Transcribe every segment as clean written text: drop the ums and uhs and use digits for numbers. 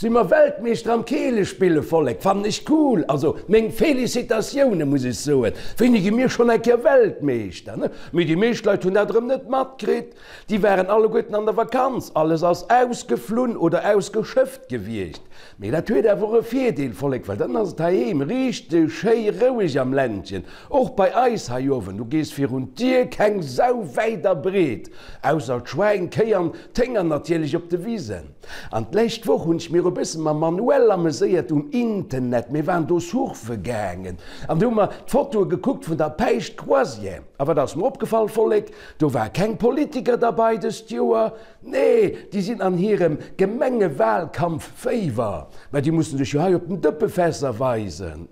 Si mer Weltmeeschter am Keelespille, Vollek, fannen ech cool, also meng Felicitatioune muss ech soen, wéini gi mir schonn eng Kéier Weltmeeschter, ne? Mee déi meescht Leit hunn dat erëm net matkritt, déi waren alleguerten an der Vakanz, alles ass ausgeflunn oder ausgeschëfft gewiescht. Mee dat huet awer och e Virdeel, Vollek, well dann ass et heiheem richteg schéi roueg am Ländchen, och bei eis hei uewen, du gees virun d'Dier, keng Sau wäit a breet, ausser d'Schwäin, d'Kéi an d'Hénger natierlech op de Wisen. An d'lescht Woch hunn ech mir e bësse mam Manuel ameséiert um Internet. Mir waren do surfe gaangen an do hu mer d'Fotoe gekuckt vun der Päischt Croisière. A wat ass mer opgefall, Vollek? Do war keng Politiker derbei dëst Joer. Nee, déi sinn an hirem Gemengewahlkampf-Féiwer. Mä déi mussen sech jo hei op den Dëppefässer weisen.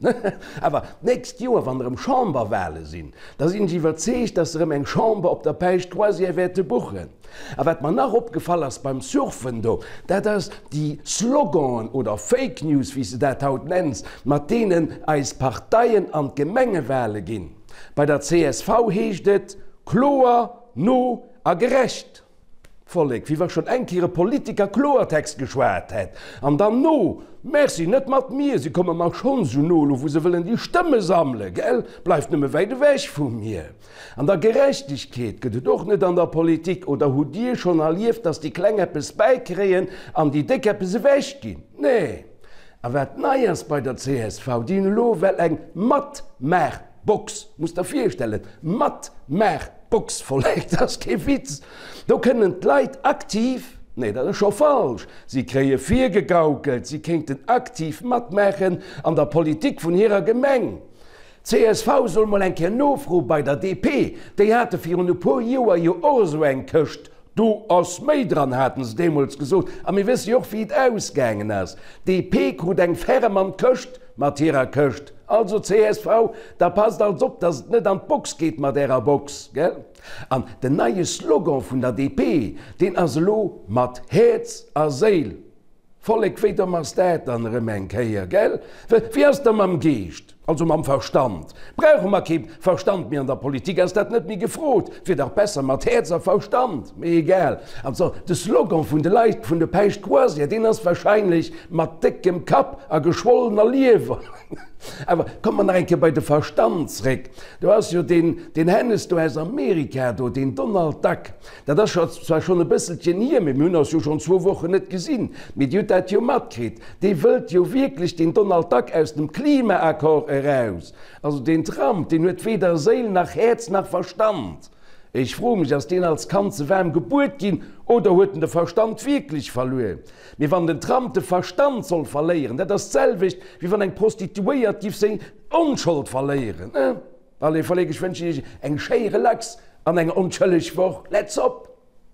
Awer d'nächst Joer, wann erëm Chamberwahle sinn, da sinn ech iwwerzeegt, dass se erëm eng Chamber op der Päischt Croisière wäerte buchen. A wat mer nach opgefall ass beim Surfen do, dat ass déi Sloganen oder Fake News, wéi s de dat haut nenns, mat deenen eis Parteien an d'Gemengewale ginn. Bei der csv heescht et kloer, no a gerecht. Vollek, wéi wa schonn eng Kéier e Politiker Kloertext geschwat hätt. An dann no, Merci, net mat mir, si komme mer schonn esou no, elo wou se wëllen déi Stëmme sammelen, gell, bleift nëmme wäit ewech vu mir. An der Gerechtegkeet gëtt et och net an der Politik. Oder hutt Dir schonn erlieft, datt déi Kleng eppes bäikréien an déi Déck eppes ewechginn? Nee. A wat nei ass bei der csv, déi hunn elo well eng Matmaachbox, musst der virstellen, Matmaachbox, Vollek, dat ass kee Witz, do kënnen d'Leit aktiv, nee, dat ass scho falsch, si kréie virgegaukelt, si kéinten aktiv matmaachen an der Politik vun hirer Gemeng. Csv soll mol eng Kéier nofroe bei der DP, déi hate virun e puer Joer jo och esou eng Këscht, do ass méi dran, haten se deemools gesot, a mir wësse jo och wéi et ausgaangen ass, DP krut eng ferrem an d'Këscht mat hirer Këscht. Also csv, da passt als op, datt et net an d'Box geet mat ärer Box, gell? An den neie Slogan vun der DP, deen ass elo mat Häerz a Séil. Vollek, wéi domm ass dat dann erëm eng Kéier, gell? Wéi ass da mam Geescht, also mam Verstand? Brauche mer kee Verstand méi an der Politik? Ass dat net méi gefrot? Wier dach besser mat Häerz a Verstand. Mee egal. Also, de Slogan vun de Leit vun de Päischt Croisière, deen ass wahrscheinlech mat déckem Kapp a geschwollener Liewer. Awer komme mer nach eng Kéier bei de Verstand zréck. Do ass jo deen, deen Hennes do aus Amerika do, deen Donald Duck. Dat ass scho zwar schonn e bësselchen hier, mee mir hunn eis jo schonn zwou Wochen net gesinn, mee Dir hutt dat jo matkritt, dee wëllt jo wierklech den Donald Duck aus dem Klimaaccord eraus. Also deen Trump, deen huet weder Séil nach Häerz nach Verstand. Ech froe mech, ass deen als Kand ze waarm gebuert ginn oder huet en de Verstand wierklech verluer? Mee wann den Trump de Verstand soll verléieren, dat ass d'selwecht wéi wann eng Prostituéiert giff seng Onschold verléieren. Allez Vollek, ech wënschen iech eng schéi relax an eng onschëlleg Woch. Let's op!